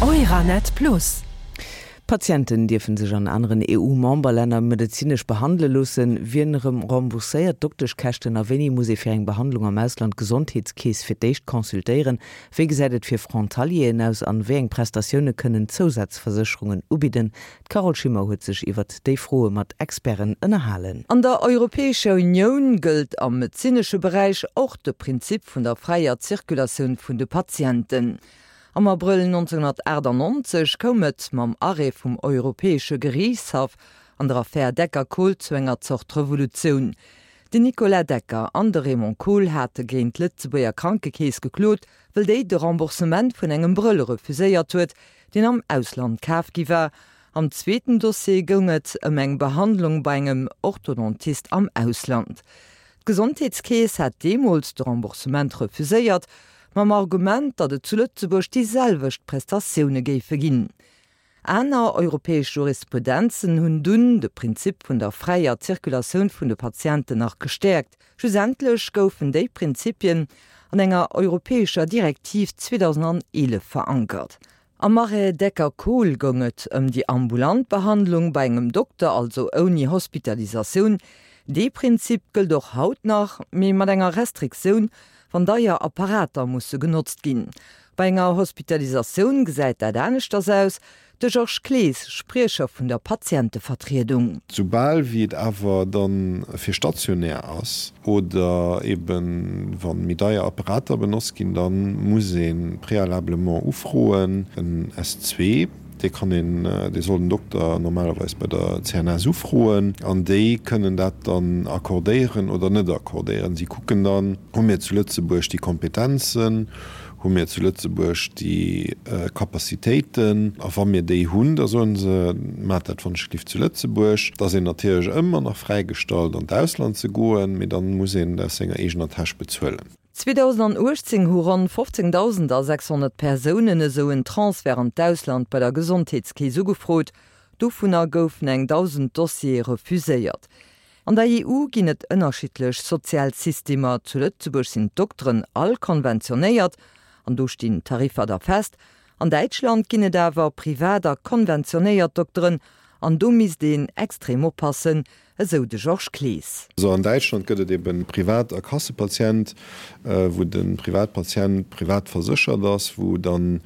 Euranet Plus. Patienten dierfen sech an aneren EU-Memberlänner medezinesch behandele loossen. Wien erëm rembourséiert d'Dokteschkäschten a wéini muss ee fir eng Behandlung am Ausland d'Gesondheetskeess fir d'éischt consultéieren? Wéi gesäit et fir Frontalieren aus an wéi eng Prestatioune kënnen Zousazversécherungen ubidden? D'Carole Schimmer huet sech iwwert déi Froe mat Experten ënnerhalen. An der Europäescher Unioun gëllt am medezinesche Beräich och de Prinzip vun der fräier Zirkulatioun vun de Patienten. Am Abrëll 1998 koum et mam Arrêt vum Europäesche Geriichtshaff an der Affär Decker-Kohl zu enger Zort Revolutioun. Den Nicolas Decker an de Raymond Kohl hate géint d'Lëtzebuerger Krankekeess geklot, wëll déi de Remboursement vun engem Brëll refuséiert huet, deen am Ausland kaf gi war. Am zweeten Dossier goung et ëm eng Behandlung bei engem Orthodontist am Ausland. D'Gesondheetskeess hat deemools de Remboursement refuséiert, mam Argument, datt et zu Lëtzebuerg déi selwecht Prestatioune géife ginn. Aner europäesch Jurisprudenzen hunn dunn de Prinzip vun der fräier Zirkulatioun vun de Patienten nach gestäerkt. Schlussendlech goufen déi Prinzipien an enger europäescher Direktiv 2011 verankert. Am Arrêt Decker-Kohl goung et ëm déi ambulant Behandlung bei engem Dokter, also ouni Hospitalisatioun. Dee Prinzip gëllt och haut nach, mee mat enger Restriktioun, wann deier Apparater musse genotzt ginn. Bei enger Hospitalisatioun gesäit dat aneschters aus. De Georges Clees, Spriecher vun der Patientevertriedung. Soubal wéi et awer dann fir stationär ass oder eben wa méi deier Apparater benotzt ginn, da muss ee préalablement ufroen, en S2, dee kann een, dee soll den Dokter normalerweis bei der CNS ufroen an déi kënnen dat dann accordéieren oder net accordéieren. Si kucken dann, hu mir zu Lëtzebuerg déi Kompetenzen, Hu mir zu Lëtzebuerg déi Capacitéiten? A wa mir déi hunn, da soen se, Maacht dat wannschgelift zu Lëtzebuerg. Et ass een natierlech ëmmer nach fräigestallt, an d'Ausland ze goen, mee dann muss een et aus senger eegener Täsch bezuelen. 2018 hu ronn 15.600 Persounen esou en Transfert an d'Ausland bei der Gesondheetskeess ugefrot. Dovunner goufen eng 1.000 Dossiere refuséiert. An der EU ginn et ënnerschiddlech sozial Systemer. Zu Lëtzebuerg sinn d'Dokteren all konventionéiert an do stinn d'Tariffer da fest. An Däitschland ginn et awer privat a konventionéiert Dokteren an do misst een extrem oppassen, esou de Georges Clees. Also an Däitschland gëtt et eben Privat a Kassepatient, wou de Privatpatient privat verséchert ass, wou dann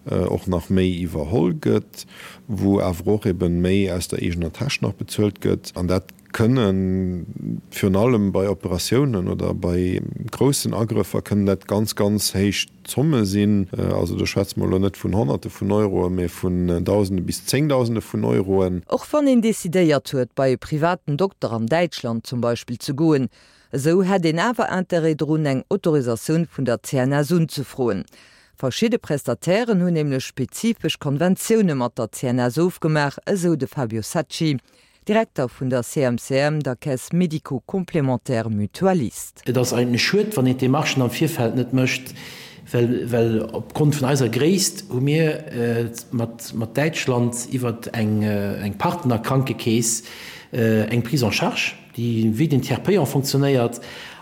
och nach méi iwwerholl gëtt, wou awer och eben méi aus der eegener Täsch nach bezuelt gëtt. An dat kënnen virun allem bei Operatiounen oder bei groussen Agrëffer kënnen dat ganz, ganz héich Zomme sinn. Also do schwätze mer elo net vun Honnerte vun Euroen, mee vun Dausende bis Zéngdausende vun Euroen. Och wann een decidéiert huet, bei e privaten Dokter an Däitschland zum Beispill ze goen, esou hätt een awer Interêt drun, eng Autorisatioun vun der CNS unzefroen. Verschidde Prestatairen hunn nämlech spezifesch Konventioune mat der CNS ofgemaach, esou de Fabio Sacchi, Direkter vun der CMCM, der Caisse médico-complémentaire mutualiste. Et ass eigentlech schued, wann een d'Demarchen am Virfeld net mécht, well well opgrond vun eiser Gréisst hu mir mat mat Däitschland iwwert eng eng Partnerkrankekeess eng Prise en charge, déi wéi den Tiers payant fonctionnéiert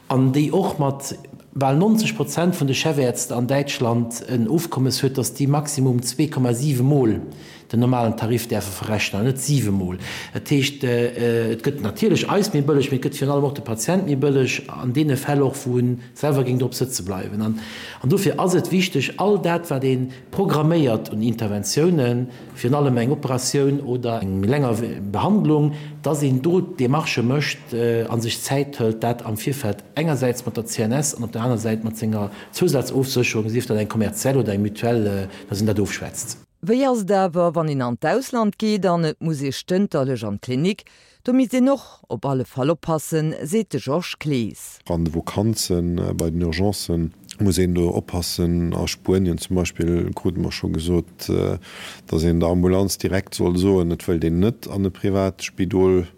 an déi och mat bal 90 Prozent vun de Chefärzte an Däitschland en Ofkommes huet, dass déi maximum 2,7 Mol den normalen Tarif däerfe verrechnen an net siwe Mol. Dat heescht, et gëtt natierlech eis méi bëlleg, mee et gëtt virun allem och de Patient méi bëlleg an deene Fäll och, wou e selwer géing drop sëtze bleiwen. An dofir ass et wichteg, all dat, wat ee programméiert un Interventiounen, virun allem eng Operatioun oder eng méi länger Behandlung, dass een do d'Demarchë mécht a sech Zäit hëlt, dat am Virfeld engersäits mat der CNS an op der aner Säit mat senger Zousazofsécherung, sief dat eng kommerziell oder eng Mutuelle, dass een dat ofschwätzt. Wéi ass et awer, wann een an d'Ausland geet an et muss ee stënterlech an d'Klinik? Do misst een och op alle Fall oppassen, seet de Georges Clees. An de Vakanzen, bei den Urgencen muss een do oppassen. A Spuenien zum Beispill krute mer scho gesot, datt een der Ambulanz direkt soll soen, et wëllt een net an e privat Spidol.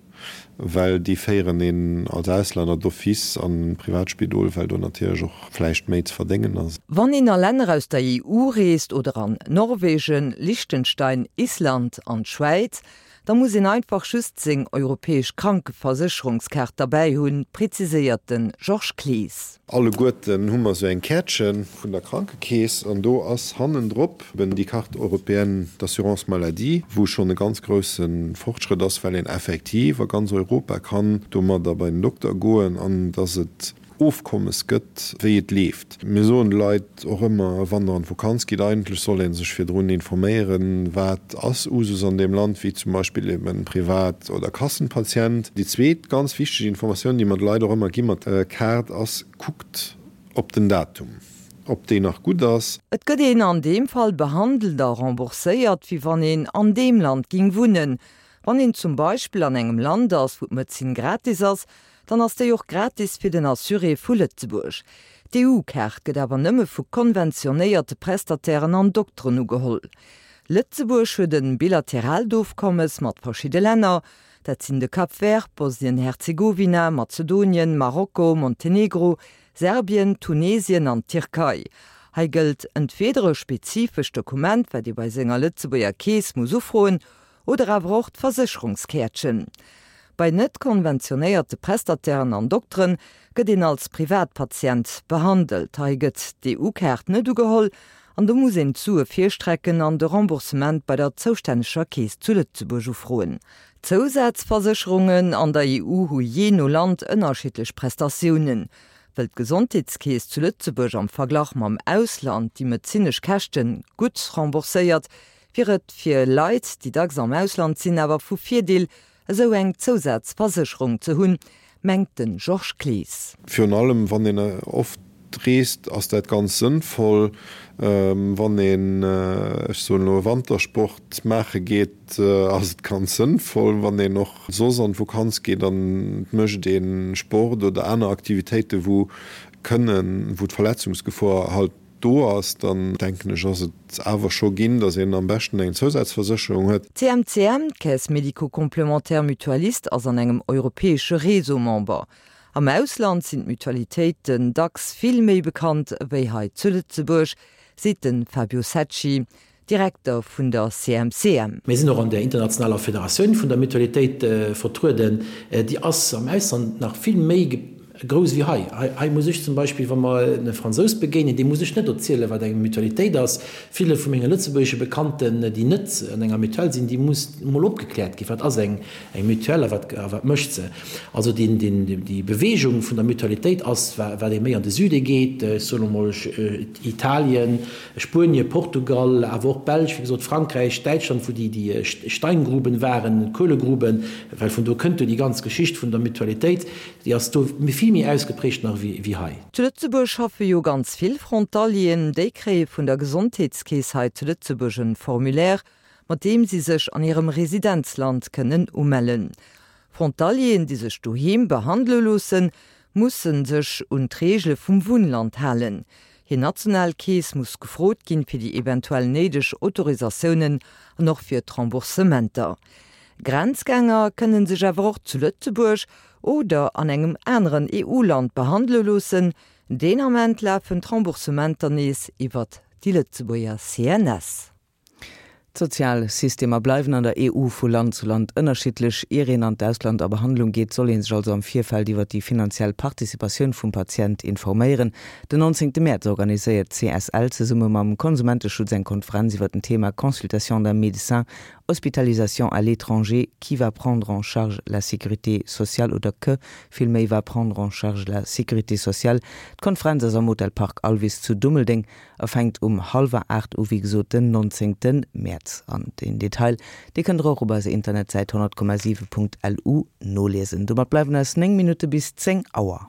well déi féieren een als Auslänner d'office an Privatspidol, well do natierlech och vläicht méi ze verdéngen ass. Wann een a Länner aus der EU reest oder an Norwegen, Liechtenstein, Island an d'Schwäiz, da muss een einfach just seng europäesch Krankeversécherungskaart derbäi hunn, preziséiert de Georges Clees. Alleguerten hu mer sou eng Käertche vun der Krankekeess an do ass hannendrop eben déi Carte européenne d'assurance maladie, wou schonn e ganz grousse Fortschrëtt ass, well een effektiv a ganz Europa kann domadder bei den Dokter goen an dass et Ofkommes gëtt, wéi et leeft. Mir soen de Leit och ëmmer, wann Der an d'Vokanz gitt, eigentlech soll ee sech virdrun informéieren, wat ass Usus an deem Land, wéi zum Beispill eben Privat oder Kassenpatient. Déi zweet ganz wichteg Informatioun, déi mer de Leit och ëmmer gi mat der Kaart, ass, Kuckt op den Datum, ob déi nach gutt ass. Et gëtt een an deem Fall behandelt a rembourséiert, wéi wann een an deem Land ging wunnen. Wann een zum Beispill an engem Land ass, wou d'Medezin gratis ass, dann ass déi och gratis fir den Assuré vu Lëtzebuerg. D'EU-Kaart gëtt awer nëmme vu konventionéierte Prestatairen an Dokteren ugeholl. Lëtzebuerg huet e bilateraalt Ofkommes mat verschidde Länner, dat sinn de Cap Vert, Bosnien-Herzegowina, Mazedonien, Marokko, Montenegro, Serbien, Tunesien an d'Tierkei. Hei gëllt entweeder e spezifescht Dokument, wat ee bei senger Lëtzebuerger Keess muss ufroen, Oder awer och d'Versécherungskäertchen. Bei net konventionéierte Prestatairen an Dokteren gëtt een als Privatpatient behandelt. Hei gëtt d'EU-Kaart net ugeholl an do muss een d'Sue virstrecken an de Remboursement bei der zoustänneger Keess zu Lëtzebuerg ufroen. Zousazversécherungen an der EU hu jee no Land ënnerschiddlech Prestatiounen. Wëll d'Gesondheetskeess zu Lëtzebuerg am Verglach mam Ausland déi medezinesch Käschte gutt rembourséiert, wier et fir Leit, déi dacks am Ausland sinn, awer vu Virdeel, esou eng Zousazversécherung ze hunn, mengt de Georges Clees. Virun allem wann een oft reest, ass dat ganz sënnvoll. Wann een, ech soen elo, e Wantersport maache geet, ass et ganz sënnvoll. Wann een och soss an d'Vokanz geet an et mécht ee Sport oder aner Aktivitéiten, wou kënnen, wou d'Verletzungsgefor halt do ass, dann denken ech, ass et awer scho ginn, datt een am beschten eng Zousazversécherung huet. D'CMCM, d'Caisse médico-complémentaire mutualiste, ass an engem europäesche Réseau Member. Am Ausland sinn d'Mutualitéiten dacks vill méi bekannt ewéi hei zu Lëtzebuerg, seet de Fabio Secci, Direkter vun der CMCM. Mir sinn och an der internationaler Federatioun vun der Mutualitéit vertrueden. Déi ass am Ausland nach vill méi grouss wéi hei. Hei muss ech zum Beispill, wa mer e Fransous begéinen, deem muss ech net erzielen, wat eng Mutualitéit ass. Ville vu menge lëtzebuergesche Bekannten, déi net an enger Mutuelle sinn, déi muss emol opgekläert ginn, wat ass eng Mutuelle a wat mécht se. Also déi Beweegung vun der Mutualitéit ass, wat ee méi an de Süde geet, ech soen emol Italien, Spuenien, Portugal, awer och d'Belsch, wéi gesot, Frankräich, Däitschland, wou déi Steingruben waren, d'Kuelegruben, well vun do kënnt jo déi ganz Geschicht vun der Mutualitéit, déi ass do vill méi ausgeprägt nach wéi hei. Zu Lëtzebuerg schaffe jo ganz vill Frontalieren. Déi kréie vun der Gesondheetskeess hei zu Lëtzebuerg en Formulaire, mat deem si sech an hirem Residenzland kënnen umellen. Frontalieren, déi sech doheem behandele loossen, musse sech un d'Reegele vum Wunnland halen. Hir national Keess muss gefrot ginn, fir déi eventuell néideg Autorisatiounen an och fir d'Remboursementer. Grenzgänger kënne sech awer och zu Lëtzebuerg oder an engem aneren EU-Land behandele loossen. Deen Ament lafen d'Remboursementer nees iwwert déi Lëtzebuerger CNS. D'sozial Systemer bleiwen an der EU vu Land zu Land ënnerschiddlech. Ier een an d'Ausland a Behandlung geet, soll ee sech also am Virfeld iwwer déi finanziell Participatioun vum Patient informéieren. Den 19 Mäerz organiséiert d'CSL zesumme mam Konsumenteschutz eng Konferenz iwwer den Thema Consultation d'un médecin, hospitalisation à l'étranger, qui va prendre en charge la sécurité sociale oder que villméi va prendre en charge la sécurité sociale. D'Konferenz ass am Hotel Parc Alvis zu Dummeldeng. A fänkt um hallwer 8 u, wéi gesot den 19 Mäerz. An den Detail, dee kënnt der och op eiser Internetsäit 100,7.lu noliesen. Domat bleiwen eis 9 Minutte bis 10 Auer.